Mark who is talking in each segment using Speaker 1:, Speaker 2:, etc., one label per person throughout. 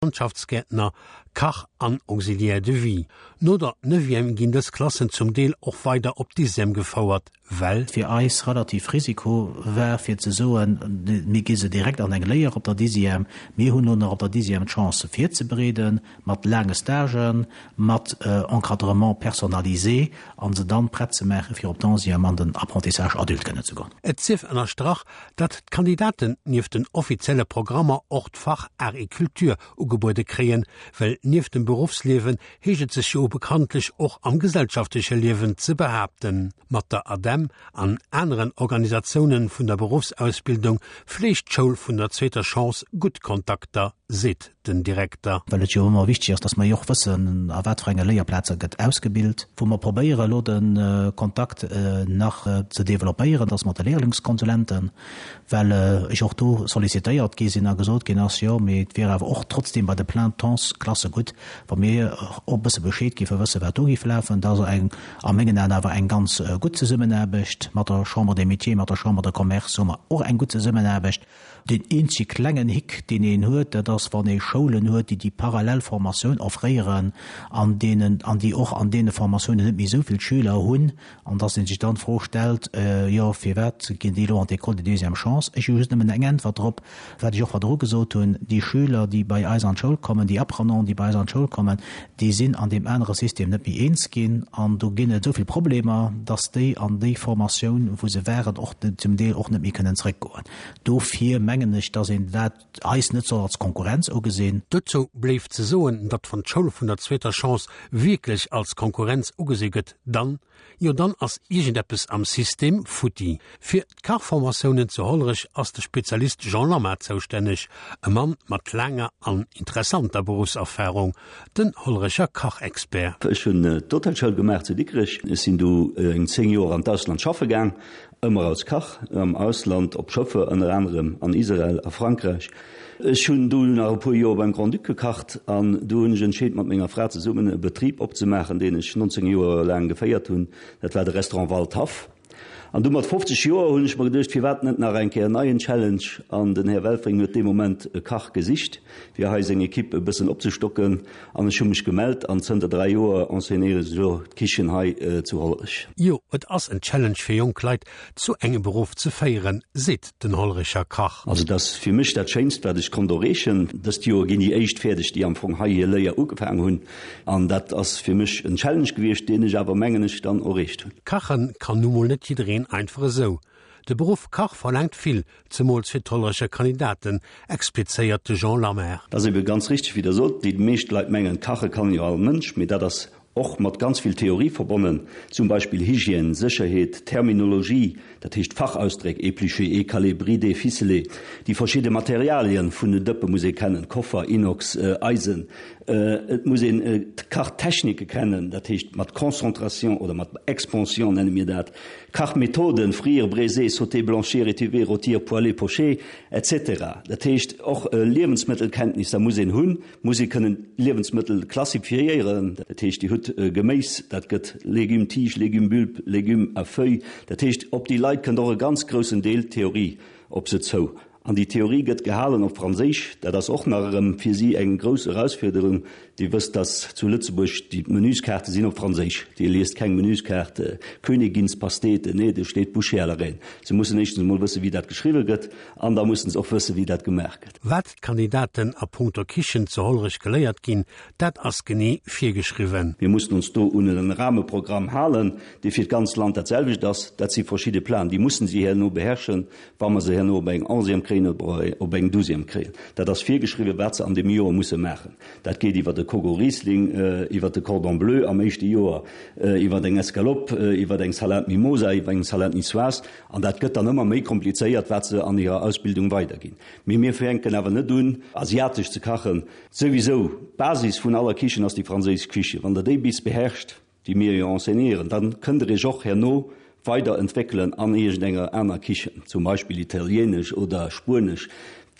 Speaker 1: Landschaftsgäertner, Kach an Auxiliaire de vie. No der Neuvième ginn dës Klassen zum Deel och weider op d'Dixième gefouert, well.
Speaker 2: Fir eis relativ Risiko war fir ze soen, mir gi se direkt an eng Léier op der Dixième. Mir hunn elo nach op der Dixième d'Chance se virzebereeden mat laange Stagen, mat Encadrement personnalisé a se dann prett ze maachen, fir op d'Onzième an den Apprentissage adulte kënnen ze goen.
Speaker 1: Et sief ënnerstrach, datt d'Kandidaten nieft den offizielle Programmer och d'Fach Art et Culture ugebuede kréien, well nieft dem Beruffsliewen heescht et sech jo bekanntlech och am gesellschaftleche Liewen ze behaapten. Mat der ADEM an aneren Organisatiounen vun der Beruffsausbildung fleegt d'Schoul vun der zweeter Chance gutt Kontakter, seet den Direkter.
Speaker 2: Well et jo ëmmer wichteg ass, dass mer jo och wëssen, a wat fir enge Léierplaze gëtt ausgebilt, wou mer probéieren elo de Kontakt nach ze developpéieren, dass mat de Lehrlingskonsulenten, well ech och do sollicitéiert gi sinn a gesot ginn ass, jo, mee et wier awer och trotzdem bei de Plein-temps-Klasse gutt, wa mir och e bësse Bescheed géife wëssen, wat do géif lafen. Dat ass eng, a mengen Aen awer eng ganz gutt Zesummenaarbecht. Mat der Chambre des Métiers, mat der Chambre de Commerce hu mer och eng gutt Zesummenaarbecht. Deen eenzege klengen Hick, deen een huet, dat ass, wann ee Schoulen huet, déi déi parallel Formatioun offréieren an deenen, an déi och an deene Formatiounen net méi esou vill Schüler hunn, an dass ee sech dann d'Fro stellt, Jo, firwat ginn déi elo an d'École de deuxième chance? Ech hu just nëmmen eng Äntwert drop, wat ech och virdru gesot hunn, Déi Schüler, déi bei eis an d'Schoul kommen, déi Apprenants, déi bei eis an d'Schoul kommen, déi sinn an deem anere System net méi eens ginn an do ginn et esou vill Problemer, dass déi an déi Formatioun, wou se waren, och zum Deel och net méi kënnen zrëckgoen. Dofir mengen ech, dass een dat eis net soll als Konkurrenz ugesinn.
Speaker 1: Dozou bléift ze soen, datt wann d'Schoul vun der zweeter Chance wierklech als Konkurrenz ugesi gëtt, dann, jo dann ass iergendeppes am System futti. Fir d'Kachformatiounen zu Hollerech ass de Spezialist Jean Lamma zoustänneg, e Mann mat laanger an interessanter Beruffserfarung, den Hollerecher Kachexpert.
Speaker 3: Ech hunn d'Hotelschoul gemaach zu Dikrech. Ech sinn du eng 10 Joer an d'Ausland schaffe gaang, ëmmer als Kach am Ausland, op Schëffer, ënner anerem an Israel a Frankräich. Ech hunn du nach e puer Joer beim Grand-Duc gekacht an du hunn ech entscheet, mat menger Fra zesummen e Betrib opzemaachen, deen ech 19 Joer laang geféiert hunn. Dat war de Restaurant Waldhaff. An du mat 50 Joer hunn ech mer geduecht, firwat net nach eng Kéier en neien Challenge? An den Här Welfring huet dee Moment e Kach gesicht, fir hei seng Equipe e bëssen opzestocken. An ech hu mech gemellt an zënter 3 Joer enseignéieren ech elo d'Kichen hei zu Hollerech.
Speaker 1: Jo, et ass en Challenge fir jonk Leit zu engem Beruff ze féieren, seet den Hollerecher Kach.
Speaker 3: Also et ass fir mech dat Schéinst, wat ech konnt erreechen. Dëst Joer ginn déi éischt fäerdeg, déi am Fong hei hir Léier ugefaang hunn. An dat ass fir mech en Challenge gewiescht, deen ech awer, mengen ech, dann erreecht hunn.
Speaker 1: Kachen kann nu mol net jiddereen einfach esou. De Beruff Kach verlaangt vill, zemools fir d'Hollerecher Kandidaten, explizéiert de Jean Lammert.
Speaker 3: Dat ass ebe ganz richteg, wéi Der sot. Déi meescht Leit mengen, kache kann jo all Mënsch, mee dat ass och mat ganz vill Theorie verbonnen, zum Beispill Hygiène, Sécherheet, Terminologie, dat heescht Fachausdréck, éplucher, écaler, brider, ficeler, déi verschidde Materialien vun den Dëppe muss ee kennen, Koffer, Inox, Eisen, et muss een d'Kachtechnike kennen, dat heescht mat Concentration oder mat Expansion nenne mir dat, Kachmethoden, frire, braiser, sauter, blanchir, étuver, rôtir, poêler, pocher, etc. Dat heescht och Liewensmëttelkenntnisser muss een hunn. Muss ee kënnen Liewensmëttel klassifiéieren, dat heescht Dir hutt Geméis, dat gëtt Légumes tige, Légumes bulbes, Légumes à feuilles, dat heescht op déi Leit kënnt och e ganz groussen Deel Theorie op se zou. An déi Theorie gëtt gehalen op Franséisch, dat ass och nach erëm fir si eng grouss Erausfuerderung. Dir wësst, dass zu Lëtzebuerg déi Menüskaarte sinn op Franséisch, Dir liest keng Menüskaart Königinspastete, nee, do steet Bouchée à la reine. Se mussen éischtens emol wëssen, wéi dat geschriwwe gëtt an da mussen se och wëssen, wéi dat gemaach gëtt.
Speaker 1: Wat d'Kandidaten a punkto Kichen zu Hollerech geléiert ginn, dat ass genee virgeschriwwen.
Speaker 3: Mir mussen ons do un e Rahmeprogramm halen, dee fir d'ganz Land dat selwecht ass. Dat si verschidde Planen, déi mussen si herno beherrschen, wa mer se herno op eng Onzième kréien oder op eng Douzième kréien. Dat ass virgeschriwwen, wat se an deem Joer musse maachen. Dat geet iwwer e Coq au Riesling, iwwer e Cordon bleu am éischte Joer, iwwer eng Escalope, iwwer eng Salade Mimosa, iwwer eng Salade niçoise. An dat gëtt dann ëmmer méi komplizéiert, wat se an hirer Ausbildung weiderginn. Mee mir fänken awer net un, asiatesch ze kachen. Souwisou, d'Basis vun aller Kichen ass déi franséisch Kiche. Wann Der déi bis beherrscht, déi mir jo enseignéieren, da kënnt Der Iech och herno weider entwéckelen an iergendenger aner Kichen, zum Beispill italienesch oder spuenesch.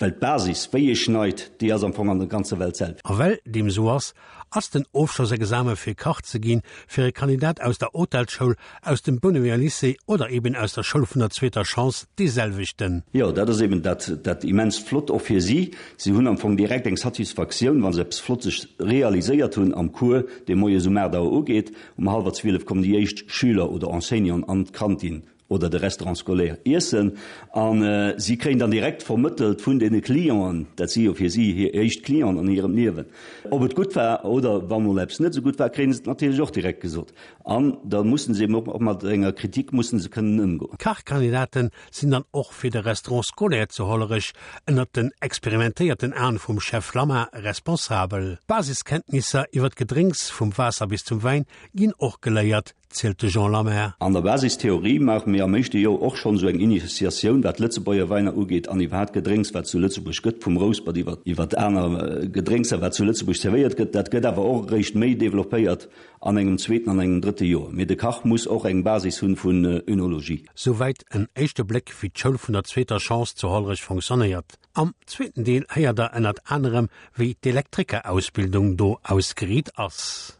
Speaker 3: Well d'Basis, wéi ee schneit, déi ass am Fong an der ganzer Welt d'selwecht.
Speaker 1: A well deem esou ass, ass den Ofschlossexame fir Kach ze ginn fir e Kandidat aus der Hotelsschoul, aus dem Bounewéger Lycée oder eben aus der Schoul vun der zweeter Chance dee selwechten.
Speaker 3: Jo, dat ass eben dat, dat immens Flott och fir si. Si hunn am Fong direkt eng Satisfaktioun, wa se eppes Flottes realiséiert hunn am Cours, dee moies um 8 Auer ugeet. Um hallwer 12 kommen déi éischt Schüler oder Enseignanten an d'Kantin oder de Restaurant scolaire iessen a si kréien dann direkt vermëttelt vun deene Clienten, dat si jo fir si hir éischt Clienten an hirem Liewen, ob et gutt war oder wa mol eppes net esou gutt war, kréie se et natierlech och direkt gesot. An da mussen se eben och mat enger Kritik mussen se kënnen ëmgoen.
Speaker 1: D'Kachkandidaten sinn dann och fir de Restaurant scolaire zu Hollerech ënnert den experimentéierten Aen vum Chef Lamma responsabel. D'Basiskenntnisser iwwer d'Gedrénks, vum Waasser bis zum Wäin, ginn och geléiert, zielt de Jean Lamer.
Speaker 3: An der Basistheorie maache mir am éischte Joer och schonn esou eng Initiatioun, wat d'Lëtzebuerger Wäiner ugeet an iwwerhaapt Gedrénks, wat zu Lëtzebuerg gëtt, vum Rouspert iwwer iwwer aner Gedrénkser, wat zu Lëtzebuerg zerwéiert gëtt. Dat gëtt awer och eréischt méi developpéiert an engem zweeten an engem drëtte Joer. Mee de Kach muss och eng Basis hunn vun Önologie.
Speaker 1: Souwäit en éischte Bléck, wéi d'Schoul vun der zweeter Chance zu Hollerech fonctionnéiert. Am zweeten Deel héiert der ënnert anerem, wéi d'Elektrikerausbildung do ausgeriit ass.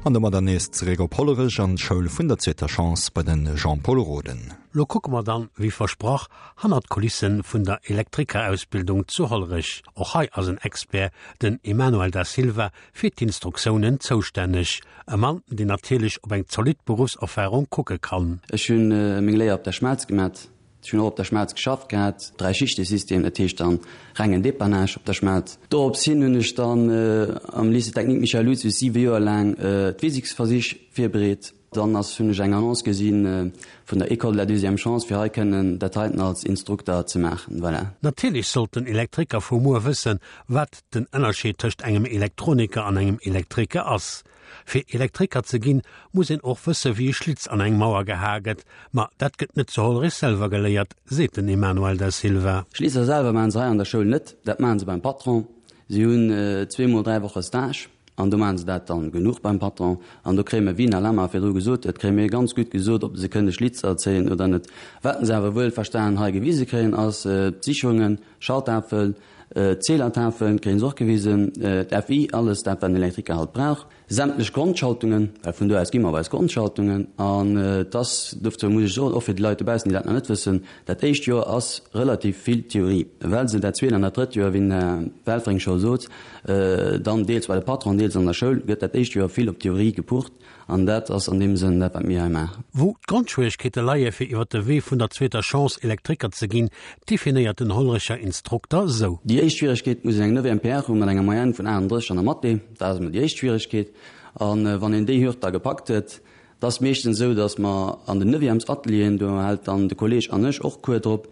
Speaker 4: An domadder nees zeréck op Hollerech an d'Schoul vun der zweeter Chance bei den Jean-Paul Roden.
Speaker 1: Lo kucke mer dann, wéi versprach, hannert d'Kulissen vun der Elektrikerausbildung zu Hollerech. Och hei ass en Expert, den Emanuel Da Silva, fir d'Instruktiounen zoustänneg. E Mann, deen natierlech op eng zolidd Beruffserfarung kucke kann.
Speaker 5: Ech hunn meng Léier op der Schmelz gemat. Ech hunn och op der Schmelz geschafft gehat, Dräischichtesystem, dat heescht dann rengen Dépannage op der Schmelz. Dorops hin hunn ech dann am Lycée technique Michel Lucius siwe Joer laang d'Physiksversich virbereet. Dann ass hunn ech eng Annonce gesi vun der École de la deuxième chance fir hei kënnen dat heiten als Instrukter ze maachen. Voilà.
Speaker 1: Natierlech sollt den Elektriker vu muer wëssen, wat den Ënnerscheed tëscht engem Elektroniker an engem Elektriker ass. Fir Elektriker ze ginn, muss een och wësse wéi e Schlitz an eng Mauer gehae gëtt. Ma dat gëtt net zu Hollerich selwer geléiert, seet den Emanuel Da Silva.
Speaker 5: Schlitzer selwer maachen se hei an der Schoul net, dat maachen se beim Patron. Si hunn zweemol 3 Woche Stage an do maachen se dat dann genuch beim Patron. An do kréie mir, wéi den Alain mar virdru gesot huet, kréie mir ganz gutt gesot, ob se kënne Schlitzer zéien oder net. Wat se awer wuelverstanen hei gewise kréien, ass d'Sicherungen, Schalttafel, D'Zählertafeln kréien se och gewisen, d'FI, alles dat wat en Elektriker halt brauch, sämtlech Grondschaltungen, well vun do aus gi mer op eis Grondschaltungen. An et ass, dofir muss ech soen, och fir déi Leit dobaussen, déi dat nach net wëssen, dat éischt Joer ass relativ vill Theorie, well se dat zweet an dat drëtt Joer, wéi den Här Welfring scho sot, dann deels bei de Patron, deels an der Schoul, gëtt dat éischt Joer vill op Theorie gepucht. An dat ass an deem Sënn dat, wat mir hei maachen.
Speaker 1: Wou d'Grondschwieregkeete leie fir iwwer de Wee vun der zweeter Chance Elektriker ze ginn, definéiert den Hollerecher Instrukter sou.
Speaker 5: Déi éischt Schwieregkeet muss een eng Neuvième PR hu mat enger Moyenne vun 38 an der Mathé. Dat ass emol déi éischt Schwieregkeet. A wann een déi Hürd da gepackt huet, et ass meeschtens esou, datt mer an den Neuvièmes-Atelieren, do hält dann de Kolleg an ech och Cours drop,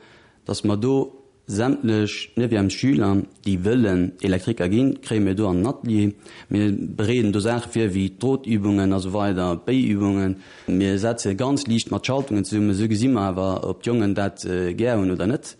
Speaker 5: datt mer do Sämtlech Neuvièmes-Schüler, déi wëllen Elektriker ginn, kréie mir do an den Atelier. Mir bereeden do Saache vir wéi d'Drotübungen a sou weider, d'Béiübungen. Mir setze ganz liicht mat Schaltungen zesummen. Esou gesi mer awer, ob d'Jongen dat gär hunn oder net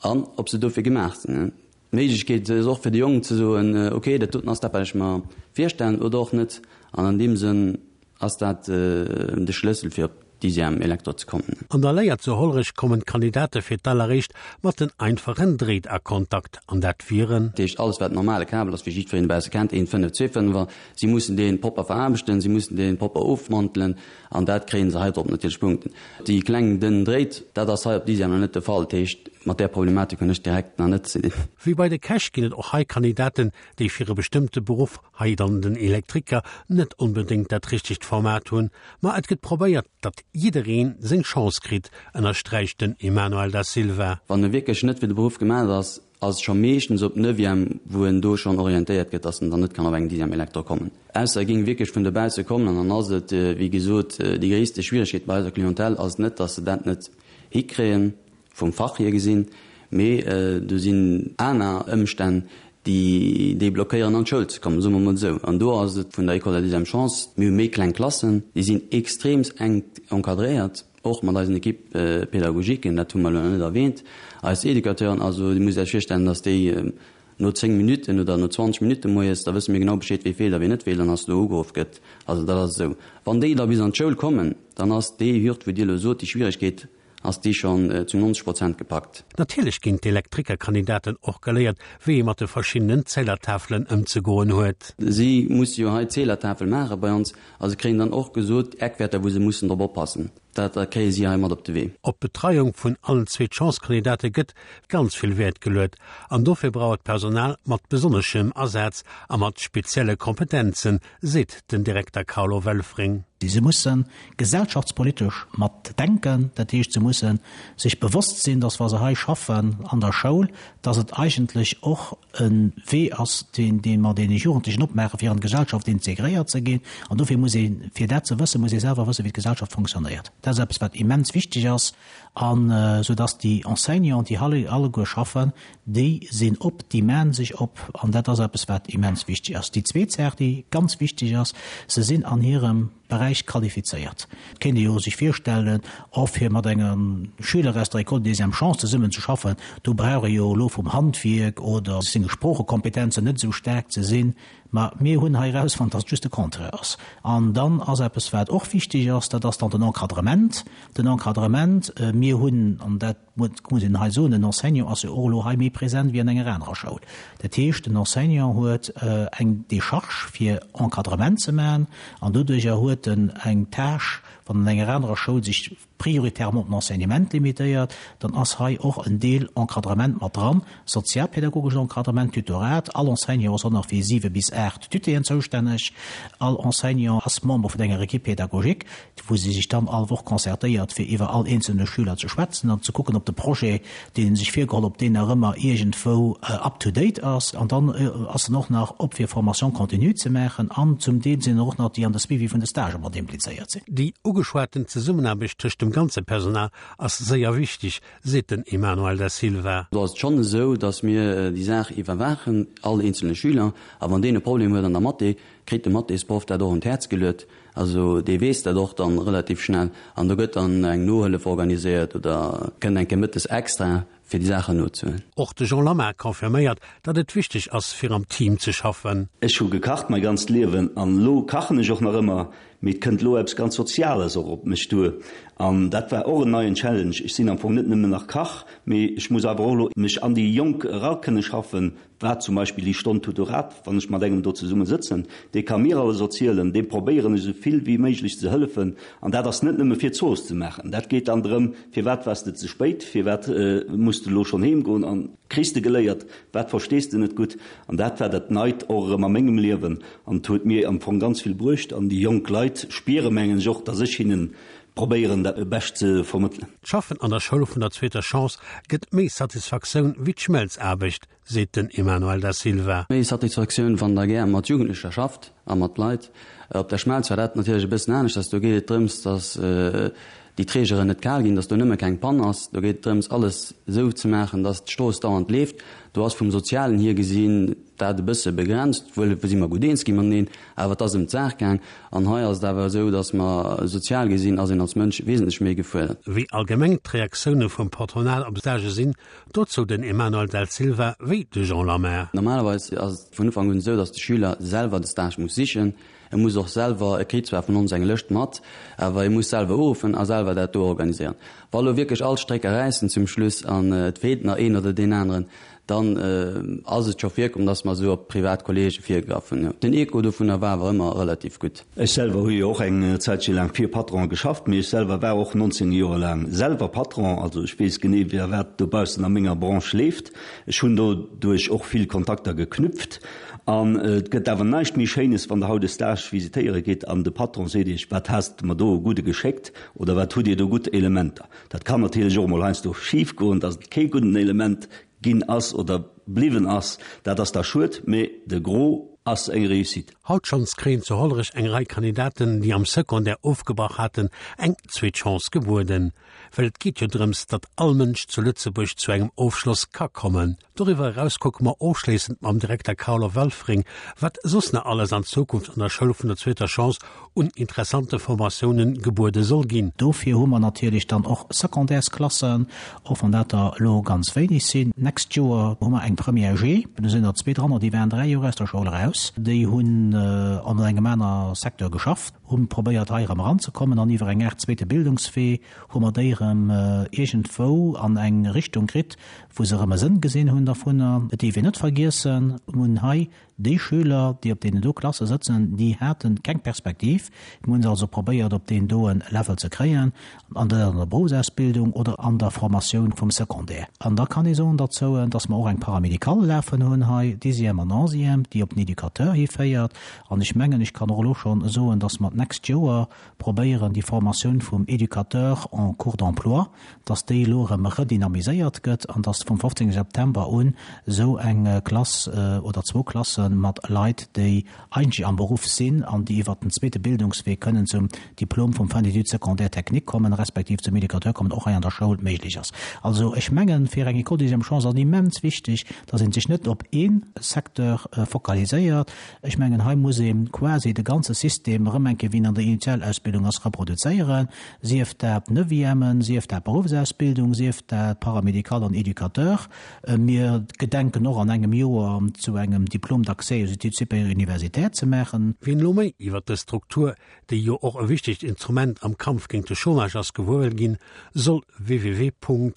Speaker 5: an ob se dofir gemaach sinn. D'Méiglechkeet ass och fir de Jong ze soen, ok, dat doten ass dat, wat ech mer virstellen oder och net. An an deem Sënn Ass dat de Schlëssel fir op Dixième Elektro ze kommen?
Speaker 1: An der Léier zu Hollerech kommen d'Kandidate fir d'alleréischt mat den einfachen Dréit a Kontakt, an dat wieren.
Speaker 5: Dat heescht alles wat normale Kabel ass, wéi jiddwereen dobausse kennt, een 5, zwee Fënnefer, si mussen dee propper veraarbechten, si mussen dee propper ofmantelen an dat kréie se hei drop natierlech Punkten. Déi kleng dënn Dréit, dat ass hei op Dixième nach net de Fall, dat heescht mat där Problematik hunn ech direkt nach net ze dinn.
Speaker 1: Wéi bei de Käch ginn et och hei Kandidaten, déi fir e bestëmmte Beruff, hei dann den Elektriker, net onbedéngt dat richtegt Format hunn. Ma et gëtt probéiert, datt jiddereen seng Chance kritt, ënnersträicht den Emanuel Da Silva.
Speaker 5: Wann e wierklech net fir de Beruff gemaach ass, ass et scho meeschtens op Neuvième, wou en do schonn orientéiert gëtt, datt en dann net kann op eng Dixième Elektro kommen. Ausser e géing wierklech vun dobausse kommen an dann ass et, wéi gesot, déi gréisste Schwieregkeet bei eiser Clientèle ass net, datt se dat net hikréien, vum Fach hier gesinn. Mee do sinn aner Ëmstänn, déi déi blockéieren an d'Schoul ze kommen, soe mer emol esou. An do ass et vun der École de la deuxième chance, mir hu méi kleng Klassen, déi sinn extreems enk encadréiert, och mat eisen Équipes pédagogiquen, dat hu mer elo nach net erwähnt, eis Educateuren. Also Dir musst Iech virstellen, datt déi no 10 Minutten oder no 20 Minutte moies, da wësse mir genau Bescheed, wee feelt a wee net feelt an datt do ugeruff gëtt. Also dat ass esou. Wann déi da bis an d'Schoul kommen, dann ass déi Hürd, wou Dir elo sot, déi Schwieregkeet, ass déi schonn zu 90 Prozent gepackt.
Speaker 1: Natierlech ginn d'Elektrikerkandidaten och geléiert, wéi ee mat de verschiddenen Zählertafelen ëmzegoen huet.
Speaker 5: Si musse jo hei d'Zählertafel maache bei ons a se kréien dann och gesot, Eckwäerter, wou se mussen drop oppassen. Dat kréie si hei mat op de Wee.
Speaker 1: Op d'Betreiung vun allen Zweet-Chance-Kandidate gëtt ganz vill Wäert geluet an dofir brauch et Personal mat besonneschem Asaz a mat spezielle Kompetenzen, seet den Direkter Carlo Welfring.
Speaker 2: Se musse gesellschaftspolitesch mat denken, dat heescht se musse sech bewosst sinn, datt wa se hei schaffen an der Schoul, datt et eigentlech och e Wee ass, deen dee mer deene Jugendlechen opmaachen, fir an d'Gesellschaft integréiert ze ginn. An dofir muss ee, fir dat ze wëssen, muss ee selwer wëssen, wéi d'Gesellschaft fonctionnéiert. Dat ass eppes wat immens wichteg ass, an esou datt déi Enseignanten, déi hei alleguer schaffen, Déi sinn op, déi maachen sech op, an dat ass eppes, wat immens wichteg ass. Déi zweet Saach, déi ganz wichteg ass, Se sinn an hirem Beräich qualifizéiert. Et kéint ee jo sech virstellen, oh, fir mat engem Schüler aus der École deuxième chance zesummen ze schaffen, do brauch ee jo elo vum Handwierk oder senge Sproochekompetenzen net esou staark ze sinn. Mä mir hunn hei erausfonnt, dass et just de Contraire ass. An dann ass eppes, wat och wichteg ass, dat ass dann den Encadrement. Den Encadrement, mir hunn, an dat, Muss een hei soen, den Enseignant ass jo och elo hei méi present wéi an enger anerer Schoul. Dat heescht, den Enseignant huet eng Décharge fir Encadrement ze maachen an doduerjer huet en eng Tâche, wann an enger anerer Schoul sech prioritairement op den Enseignement limitéiert, dann ass hei och en Deel Encadrement mat dran, sozialpädagogeschen Encadrement, Tutorat. All Enseignant ass och nach fir 7 bis 8 Tutéen zoustänneg. All Enseignant ass Member vun enger Équipe pédagogique. wou si sech dann all Woch concertéiert, fir iwwer all eenzelne Schüler ze schwätzen an ze kucken, ob de Projet, deen ee sech virgeholl, ob deen nach ëmmer iergendwou up to date ass. An dann ass en och nach op fir Formation continue ze maachen an zum Deel sinn och nach déi an de Suivi vun de Stagë mat implizéiert sinn.
Speaker 1: Déi ugeschwaten Zesummenaarbecht tëscht dem ganze Personal ass séier wichteg, seet den Emanuel Da Silva.
Speaker 5: Do ass et schonn esou, datt mir déi Saach iwwerwaachen, all eenzelne Schüler. A wann deen e Problem huet an der Mathé, kritt de Mathésproff dat och un d'Häerz geluet. Also dee weess dat och dann relativ schnell an do gëtt dann eng Nohëllef organiséiert oder kënnt eng Kéier mëttes extra fir déi Saachen nozehuelen.
Speaker 1: Och de Jean Lammar confirméiert, datt et wichteg ass fir am Team ze schaffen.
Speaker 3: Ech hu gekacht mäi ganzt Liewen an elo kachen ech och nach ëmmer, mee et kënnt elo eppes ganz Soziales och op mech duer an dat war och en neien Challenge. Ech sinn am Fong net nëmmen nach Kach, mee ech muss awer och elo mech an déi Jonk era kënne schaffen, Wat zum Beispill déi Stonn Tutorat, wann ech mat engem do zesumme sëtzen, dee ka mir alles erzielen, deem probéieren ech esou vill wéi méiglech ze hëllefen. An dat ass net nëmme fir d'Zooss ze maachen, dat geet dann drëm, firwat waars de ze spéit, firwat muss de elo schonn heem goen an kriss de geléiert, wat verstees de net gutt. An dat war dat Neit och erëm a mengem Liewen an et huet mir am Fong ganz vill bruecht. An déi jonk Leit spiere mengen ech och, datt ech hinnen probéieren dat bescht ze vermëttelen.
Speaker 1: D'Schaffen an der Schoul vun der zweeter Chance gëtt méi Satisfaktioun wéi d'Schmelzaarbecht, seet den Emanuel Da Silva.
Speaker 5: Méi Satisfaktioun, wann der gär mat Jugendlecher schafft a mat Leit. Op der Schmelz war dat natierlech e bëssen aneschters. Do geet et drëms, datt déi Trägeren net kal ginn, datt do nëmme keng Pann ass. Do geet et drëms, alles esou ze maachen, datt d'Strooss dauernd leeft. Do ass vum Sozialen hier gesinn dat e bësse begrenzt, wuel si mer gutt eens gi mateneen, awer et ass ëm d'Saach gaang. An hei ass et awer esou, datt mer sozial gesinn ass een als Mënsch wesentlech méi gefuerdert.
Speaker 1: Wéi allgemeng d'Reaktioune vum Patronat op Stagë sinn, dozou den Emanuel Del Silva wéi de Jean Lamer.
Speaker 5: Normalerweis ass et vun Ufank un esou, datt de Schüler selwer de Stage muss sichen. E muss och selwer, e kritt zwar vun ons eng Lëscht mat, awer e muss selwer uruffen a selwer dat do organiséieren. Wa lo wierklech all Strécker räissen zum Schluss an et feelt nach een oder deen aneren, Dann ass et scho virkomm, dass mer esou op privat Kollege virgegraff hunn. Den Echo dovunner war awer ëmmer relativ gutt.
Speaker 3: Ech selwer hu jo och eng Zäitche laang fir Patronen geschafft, mee ech selwer war och 19 Joer laang selwer Patron. Also ech weess genee, wéi a wat dobaussen a menger Branche leeft. Ech hunn doduerch och vill Kontakter geknüpft. An et gëtt awer näischt méi Schéines, wann Der haut e Stage visitéiere gitt an de Patron seet Iech, Wat has de mer do e gudde geschéckt oder wat hutt Dir do gutt Elementer. Dat kann natierlech och emol heiansdo schif goen, dass et kee gudden Element ginn ass oder bliwwen ass. Dat ass da schued, mee de Gros ass eng Réussite.
Speaker 1: Haut schonns kréien zu Hollerech eng Rei Kandidaten, déi am Secondaire ofgebrach haten, eng zweet Chance gebueden. Well et geet jo drëms, datt all Mënsch zu Lëtzebuerg zu engem Ofschloss ka kommen. Doriwwer eraus kucke mer ofschléissend mam Direkter Carlo Welfring, wat soss nach alles an Zukunft an der Schoul vun der zweeter Chance un interessante Formatiounen gebuede soll ginn.
Speaker 2: Dofir hu mer natierlech dann och Secondaires-Klassen, och wann dat der elo ganz wéineg sinn. D'nächst Joer hu mer eng Première G, do sinn der zwee dranner, déi waren dräi Joer aus der Schoul eraus, déi hunn an engem aner Secteur geschafft, hu probéiert hei erëm eranzekommen an iwwer eng Aart zweete Bildungswee hu mer déi erëm iergendwou an eng Richtung kritt, wou se erëm e Sënn gesinn hunn dervunner. Et dierf een net vergiessen, mir hunn hei déi Schüler, déi op deenen do Klasse sëtzen, déi hate keng Perspektiv. Mir hunn se also probéiert op deen doen Level ze kréien, an der an der Berufsausbildung oder an der Formatioun vum Secondaire. An da kann ee soen derzou, dass mer och eng Paramédicale lafen hunn hei, Dixième an Onzième, déi op den Educateur hiféiert. An ech mengen, ech kann och elo schonn soen, dass mer d'nächst Joer probéieren, déi Formatioun vum Educateur en cours d'emploi, dass déi elo erëm redynamiséiert gëtt an dass vum 15 September un esou eng Klass oder zwou Klasse mat Leit, déi eigentlech am Beruff sinn an déi iwwert den zweete Bildungswee kënnen zum Diplom vum Fin d'études secondaires techniques kommen, respektiv zum Educateur kommen, och hei an der Schoul méiglech ass. Also ech mengen, fir eng École deuxième chance ass et immens wichteg, dass ee sech net op ee Secteur fokaliséiert, Ech mengen, hei muss ee quasi de ganze System erëm eng Kéier, wéi en an der Initialausbildung ass, reproduzéieren, sief dat Neuvièmen, sief dat Beruffsausbildung, sief dat Paramédical an Éducateur. Mir gedenken och an engem Joer zu engem Diplôme d'accès aux études supérieures universitaires ze maachen.
Speaker 1: Wien elo méi iwwert dës Struktur, déi jo och e wichtegt Instrument am Kampf géint de Chômage ass, gewuer wëll ginn, soll www.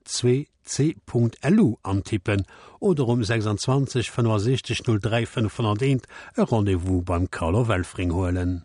Speaker 1: 2c.lu antippen oder um 26 65 03 501 e Rendez-vous beim Carlo Welfring huelen.